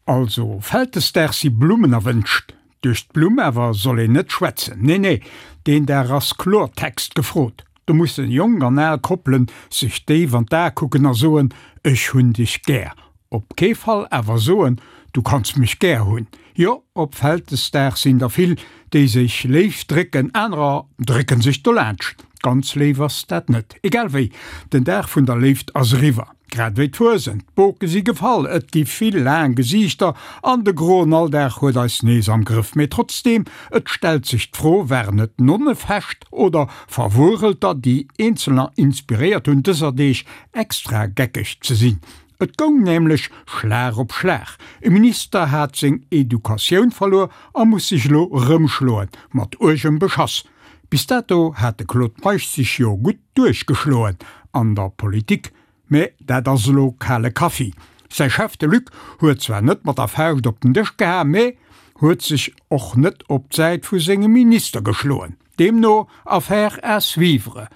Also, Vältesdag si Blummen erwënscht. Duerch d'Blumm awer soll een net schwätzen. Nee, nee, deen Dag ass Klortext gefrot. Do mussen jonk an al Koppelen sech déif an d'Ae kucken a soen, Ech hunn dech gär. Op kee Fall awer soen, Du kanns mech gär hunn. Jo, op Vältesdag sinn der vill, déi sech léif drécken, anerer drécken sech dolaanscht. Ganz léif ass dat net. Egal wéi, den Dag vun der Léift ass eriwwer. Grad wéi d'Fuesent, d'Boke si gefall, et gi vill laang Gesiichter an de groen Alldag huet eis nees am Grëff. Mee trotzdeem, et stellt sech d'Fro, Waren et Nonnefescht oder Verwurelter, déi Eenzelner inspiréiert hunn, dëser Deeg extra geckeg ze sinn? Et goung nämlech Schlag op Schlag. E Minister hat seng Educatioun verluer a muss sech elo erëmschloen, mat uergem Beschass. Bis dato hat de Claude Meisch sech jo gutt duerchgeschloen an der Politik, mä dat ass elo kale Kaffi. Säi Chef, de Luc, huet zwar net mat der Fauscht op den Dësch geha, mä huet sech och net op d'Säit vu sengem Minister geschloen. Deemno Affaire à suivre.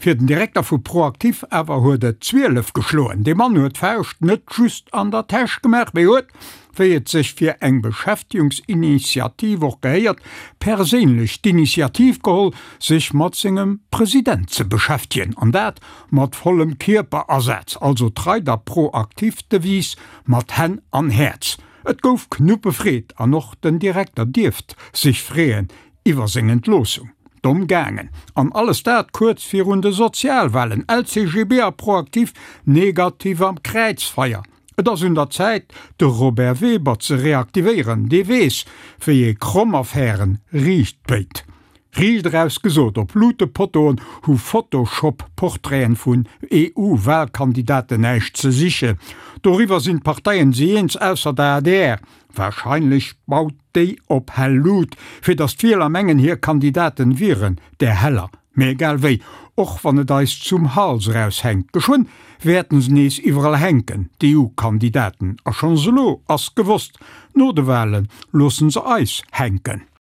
Fir den Direkter vu ProActif awer huet et 12 geschloen. Dee Mann huet d'Fauscht net just an der Täsch gemaach, mee huet, wéi et sech fir eng Beschäftegungsinitiativ och gehéiert, perséinlech d'Initiativ geholl, sech mat sengem President ze beschäftegen. An dat mat vollem Kierperasaz, also trei der ProActif-Devise mat Hänn an Häerz. Et gouf Knuppefreed an och den Direkter dierft sech freeën iwwer seng Entloossung. Domm gaangen. An alles dat kuerz virun de Sozialwahlen. LCGB a Proactif negativ am Kräizfeier. Et ass un der Zäit, de Robert Weber ze reaktivéieren. Dee weess, wéi ee kromm Affären riicht béit. Riicht eraus gesot, op Luutepottoen hu Photoshop-Portraiten vun EU-Wahlkandidaten näischt ze sichen. Doriwwer sinn d'Parteien si eens, ausser der adr. Wahrscheinlech baut déi op hell Lut, fir datt d'Wieler mengen hir Kandidaten wieren där heller. Mee egal wéi, och wann et eis zum Hals eraus hänkt, geschwënn wäerten se nees iwwerall hänken, d'EU-Kandidaten. A schonns elo ass gewosst, no de Wahlen loossen se eis hänken.